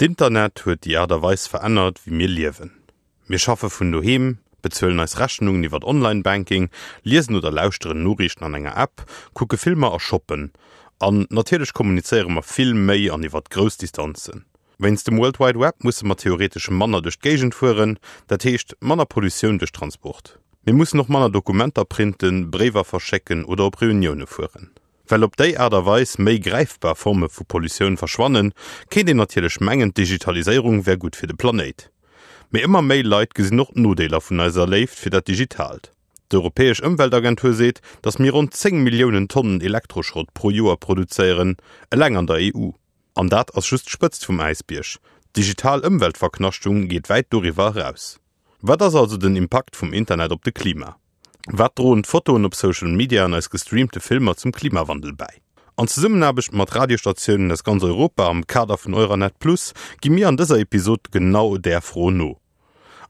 D'Internet huet déi Aart a Weis verännert, wéi mir liewen. Mir schaffe vun doheem, bezuelen eis Rechnungen iwwert Online-Banking, liesen oder lauschteren Noriichten an enger App, kucke Filmer a shoppen. An natierlech kommunizéiere mer vill méi an iwwert grouss Distanzen. Wéinst dem World Wide Web musse mer theoretesch manner duerch d'Géigend fueren, dat heescht manner Pollutioun duerch Transport. Mir mussen och manner Dokumenter printen, Bréiwer verschécken oder op Reunioune fueren. Well op déi Aart a Weis méi gräifbar Forme vu Pollutioun verschwannen, kéint een natierlech mengen, d'Digitaliséierung wär gutt fir de Planéit. Mee ëmmer méi Leit gesinn och d'Nodeeler vun eiser Léift fir dat Digitaalt. D'Europäesch Ëmweltagentur seet, datt mir ronn 10 Milliounen Tonnen Elektroschrott pro Joer produzéieren, eleng an der EU. An dat ass just d'Spëtzt vum Äisbierg. D'digital Ëmweltverknaschtung geet wäit doriwwer eraus. Wat ass also den Impakt vum Internet op de Klima? Wat droen d'Fotoen op Social Media an eis gestreamte Filmer zum Klimawandel bäi? An Zesummenaarbecht mat Radiostatiounen aus ganz Europa am Kader vun Euranet Plus gi mir an dëser Episod genau där Fro no.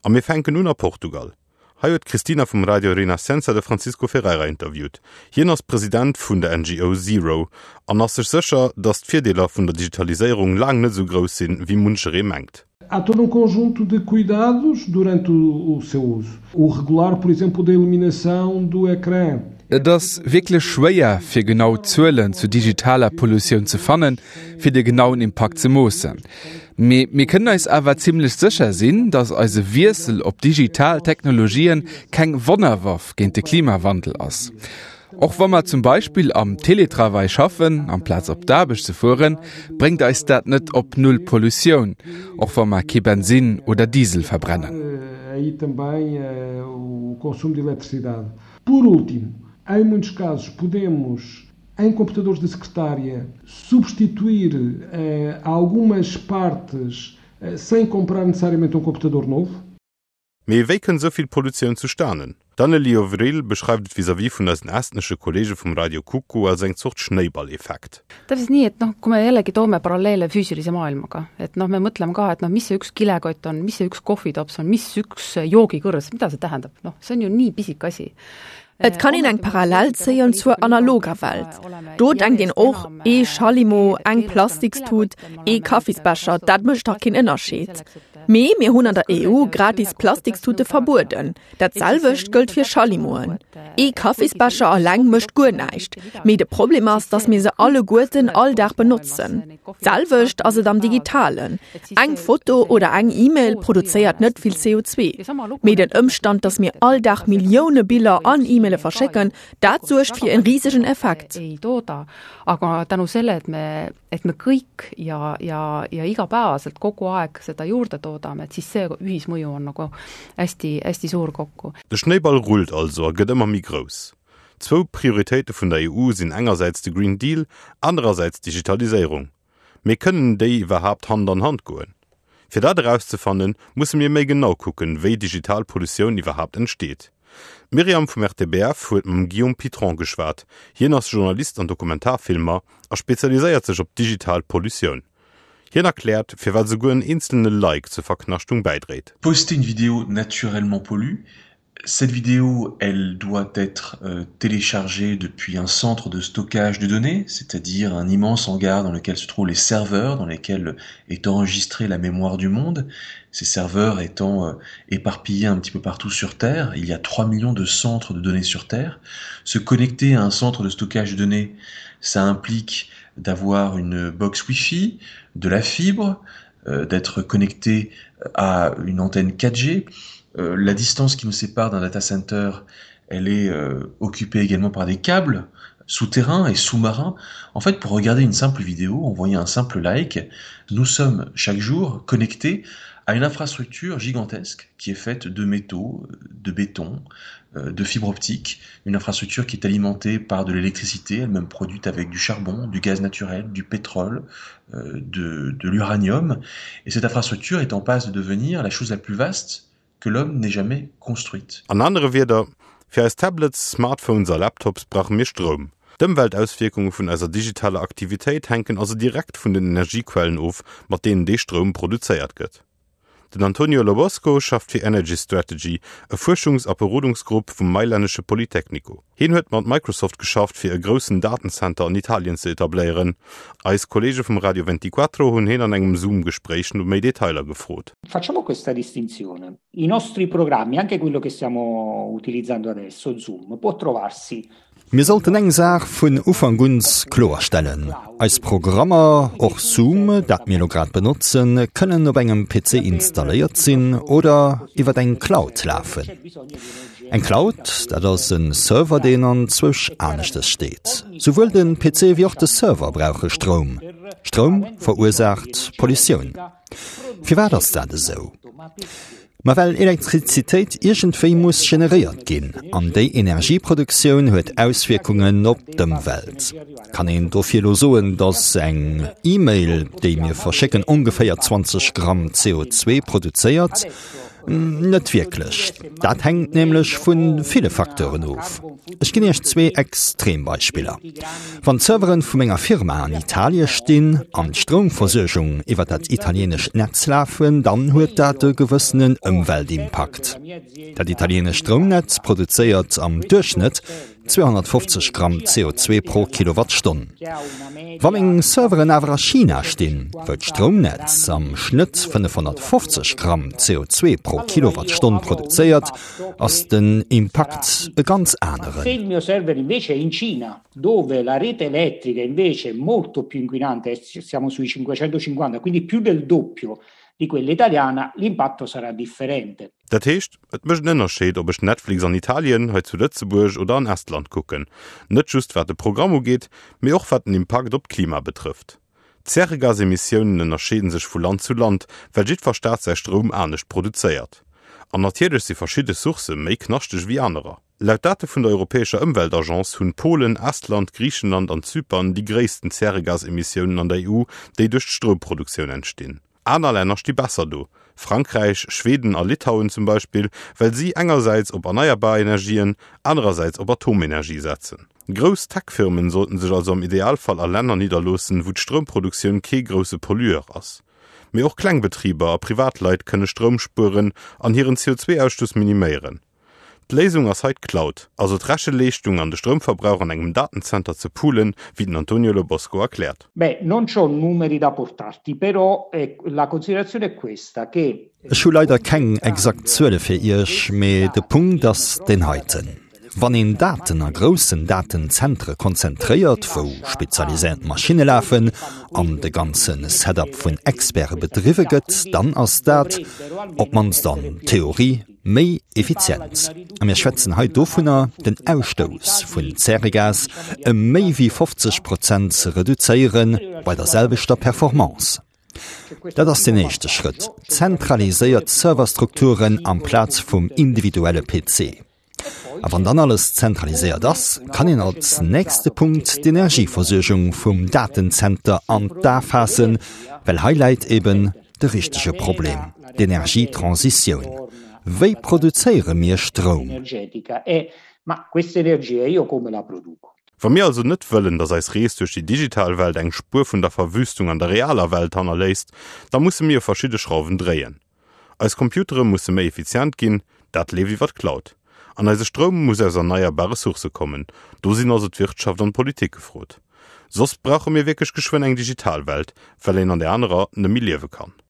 A mir fänken un a Portugal. Hei huet d'Cristina vum Radio Renascença de Francisco Ferreira interviewt. Hien ass President vun der NGO Zero an ass sech sécher, datt d'Virdeeler vun der Digitaliséierung laang net esou grouss sinn, wéi muncheree mengt. Há todo um conjunto de cuidados durante o, o seu uso. O regular, por exemplo, da iluminação do ecrã. Et ass wierklech schwéier, fir genau Zuelen zu digitaler Pollutioun ze fannen, fir de genauen Impakt ze moossen. Mee mir kënnen eis awer zimmlech sécher sinn, datt eise Wiessel op digital Technologien keng Wonnerwaff géint de Klimawandel ass. Och wa mer zum Beispill am Teletravail schaffen, amplaz op d'Aarbecht ze fueren, bréngt eis dat net op null Pollutioun, och wa mer kee Bensin oder Diesel verbrennen. Por último, em muitos casos podemos, em computadores de secretária, substituir eh, algumas partes eh, sem comprar necessariamente um computador novo. Mee wéi kënnt esou vill Pollutioun zustanen? D'Anneli Ovril beschreift et vis-à-vis vun eisen estnesche Kolleege vum Radio Kuku als eng Zort Schnéiballeffekt. Täpselt nii, et noh, kui me jällegi toome paralleele füüsilise maailmaga, et noh, me mõtleme ka, et noh, mis see üks kilekott on, mis see üks kohvitops on, mis üks joogikõrs, mida see tähendab, noh, see on ju nii pisike asi. Et kann een eng Parallel zéien zur analoger Welt. Do denkt een och, ee Schallimo, eng Plastikstut, ee Kaffisbecher, dat mécht dach keen Ënnerscheed. Mee mir hunn an der EU gratis Plastikstute verbueden. Dat selwecht gëllt fir Schallimoen. Ee Kaffisbecher alleng mécht guer näischt, mee de Problem ass, datt mir se alleguerten all Dag benotzen. D'selwecht ass et am Digitalen. Eng Foto oder eng E-Mail produzéiert net vill CO2. Mee den Ëmstand, datt mir all Dag Millioune Biller an E-Maile verschécken, dat suergt fir en risegen Effekt. Aga tänu selle, et me, et me kõik ja, ja, ja igapäevaselt kogu aeg seda juurde toodame, et siis see ühismõju on nagu hästi, hästi suur kokku. De Schnéiball rullt also a gëtt ëmmer méi grouss. Zwou Prioritéite vun der EU sinn engersäits de Green Deal, anerersäits d'Digitaliséierung. Mee kënnen déi iwwerhaapt Hand an Hand goen? Fir dat erauszefannen, musse mir méi genau kucken, wéi digital Pollutioun iwwerhaapt entsteet. D'Myriam vum RTBF huet mam Guillaume Pitron geschwat. Hien ass Journalist an Dokumentarfilmer a spezialiséiert sech op digital Pollutioun. Hien erkläert, firwat esouguer en eenzelne Like zur Verknaschtung bäidréit. Poster une vidéo naturellement pollue, Cette vidéo, elle doit être euh, téléchargée depuis un centre de stockage de données, c'est-à-dire un immense hangar dans lequel se trouvent les serveurs, dans lesquels est enregistrée la mémoire du monde, ces serveurs étant euh, éparpillés un petit peu partout sur Terre. Il y a 3 millions de centres de données sur Terre. Se connecter à un centre de stockage de données, ça implique d'avoir une box Wi-Fi, de la fibre, euh, d'être connecté à une antenne 4G. Euh, la distance qui nous sépare d'un data center, elle est euh, occupée également par des câbles souterrains et sous-marins. En fait, pour regarder une simple vidéo, envoyer un simple like, nous sommes chaque jour connectés à une infrastructure gigantesque qui est faite de métaux, de béton, euh, de fibres optiques, une infrastructure qui est alimentée par de l'électricité, elle-même produite avec du charbon, du gaz naturel, du pétrole, euh, de, de l'uranium. Et cette infrastructure est en passe de devenir la chose la plus vaste que l'homme n'ait jamais construite. An anere Wierder, fir eis Tablets, Smartphones a Laptops brauche mir Stroum. D'Ëmweltauswierkunge vun eiser digitaler Aktivitéit hänken also direkt vun den Energiequellen of, mat deenen dee Stroum produzéiert gëtt. Den Antonio Lobosco schafft fir Energy Strategy, e Fuerschungs a Berodungsgrupp vum mailännesche Politecnico. Hien huet mat Microsoft geschafft, fir e groussen Datenzenter an Italien ze etabléieren. Eis Kolleege vum Radio Ventiquattro hunn hien an engem Zoom-Gespréich no méi Detailer gefrot. Facciamo questa distinzione. I nostri programmi, anche quello che stiamo utilizzando adesso, Zoom, può trovarsi Mir sollten eng Saach vun Ufank un kloerstellen, Eis Programmer, och Zoom, dat mir elo grad benotzen, kënnen op engem PC installéiert sinn oder iwwer eng Cloud lafen. Eng Cloud, dat ass e Server, deen anzwousch aneschtes steet. Souwuel de PC wéi och de Server brauche Stroum. Stroum verursaacht Pollutioun. Firwat ass dat esou? Ma well Elektrizitéit iergendwéi muss generéiert ginn, an déi Energieproduktioun huet Auswierkungen op d'Ëmwelt. Kann een dofir elo soen, datt eng E-Mail, déi mir verschécken, ongeféier 20 Gramm CO2 produzéiert? Net wierklech. Dat hänkt nämlech vu ville Facteuren of. Ech ginn Iech zwee Extrembeispiller. Wann d'Serveren vu menger Firma an Italie stinn an d'Stroumversuergung iwwer dat italienescht Netz lafen, dann huet dat e gewëssenen Ëmweltimpakt. Dat italienescht Stroumnetz produzéiert am Duerchschnëtt 250 Gramm CO2 pro Kilowattstonn. Wa meng Serveren awer a China stinn, wou d'Stroumnetz am Schnëtt 550 Gramm CO2 pro Kilowattstonn produzéiert, ass den Impakt e ganz aneren. Dove la rete elettrica invece è molto più inquinante, siamo sui 550, quindi più del doppio di quella italiana, l'impatto sarà differente. Dat heescht, et mécht en Ënnerscheed, ob ech Netflix an Italien, hei zu Lëtzebuerg oder an Estland kucken. Net just wat de Programm ugeet, mee och wat den Impakt op d'Klima betrëfft. D'Zäregasemissiounen ënnerscheeden sech vu Land zu Land, well jiddwer Staat säi Stroum anescht produzéiert. An natierlech si verschidde Sourcë méi knaschteg ewéi anerer. Laut Date vun der Europäescher Ëmweltagence hunn Polen, Estland, Griichenland an Zypern déi gréissten Zäregasemissiounen an der EU, déi duerch d'Stroumproduktioun entstinn. Aner Länner sti besser do, Frankräich, Schweden a Litauen zum Beispill, well si engersäits op erneierbar Energien, anerersäits op Atomenergie setzen. Grouss Tech-Firmen sollten sech also am Idealfall a Länner nidderloossen, wou d'Stroumproduktioun kee grousse Pollueur ass. Mee och kleng Betriber a Privatleit kënne Stroum spueren an hiren CO2-Ausstoss miniméieren. D'Léisung ass hei d'Cloud, also d'Recheleeschtung an de Stroumverbrauch an engem Datenzenter ze poolen, wéi den Antonio Lobosco erkläert. Beh, non c'ho numeri da portarti, però la considerazione è questa, che. Ech hu leider keng exakt Zuele fir Iech, mee de Punkt ass deen heiten, Wann een Daten a groussen Datenzentre konzentréiert, wou spezialiséiert Maschinne lafen an de ganze Setup vun Experte bedriwwe gëtt, dann ass dat, op d'mannst an Theorie, méi effizient. A mir schwätzen hei dovunner, den Ausstouss vun Zäregas ëm méi wéi 50 Prozent ze reduzéiere bei der selwechter Performance. Dat ass den éischte Schrëtt, zentraliséiert Serverstrukturen amplaz vum individuelle PC. A wann dann alles zentraliséiert ass, kann een als nächste Punkt d'Energieversuergung vum Datenzenter an d'A faassen, well hei läit eben de richtege Problem, d'Energietransitioun. Wéi produzéiere mir Stroum? Wa mir also net wëllen, datt eis Rees duerch déi digital Welt eng Spuer vun der Verwüstung an der realer Welt hannerléisst, da musse mir u verschidde Schrauwen dréien. Eis Computere musse méi effizient ginn, dat leeft iwwer d'Cloud. An eise Stroum muss aus erneierbare Sourcë kommen. Do sinn also d'Wirtschaft an d'Politik gefrot. Soss brauche mir wierklech geschwënn eng digital Welt, well een an där anerer net méi liewe kann.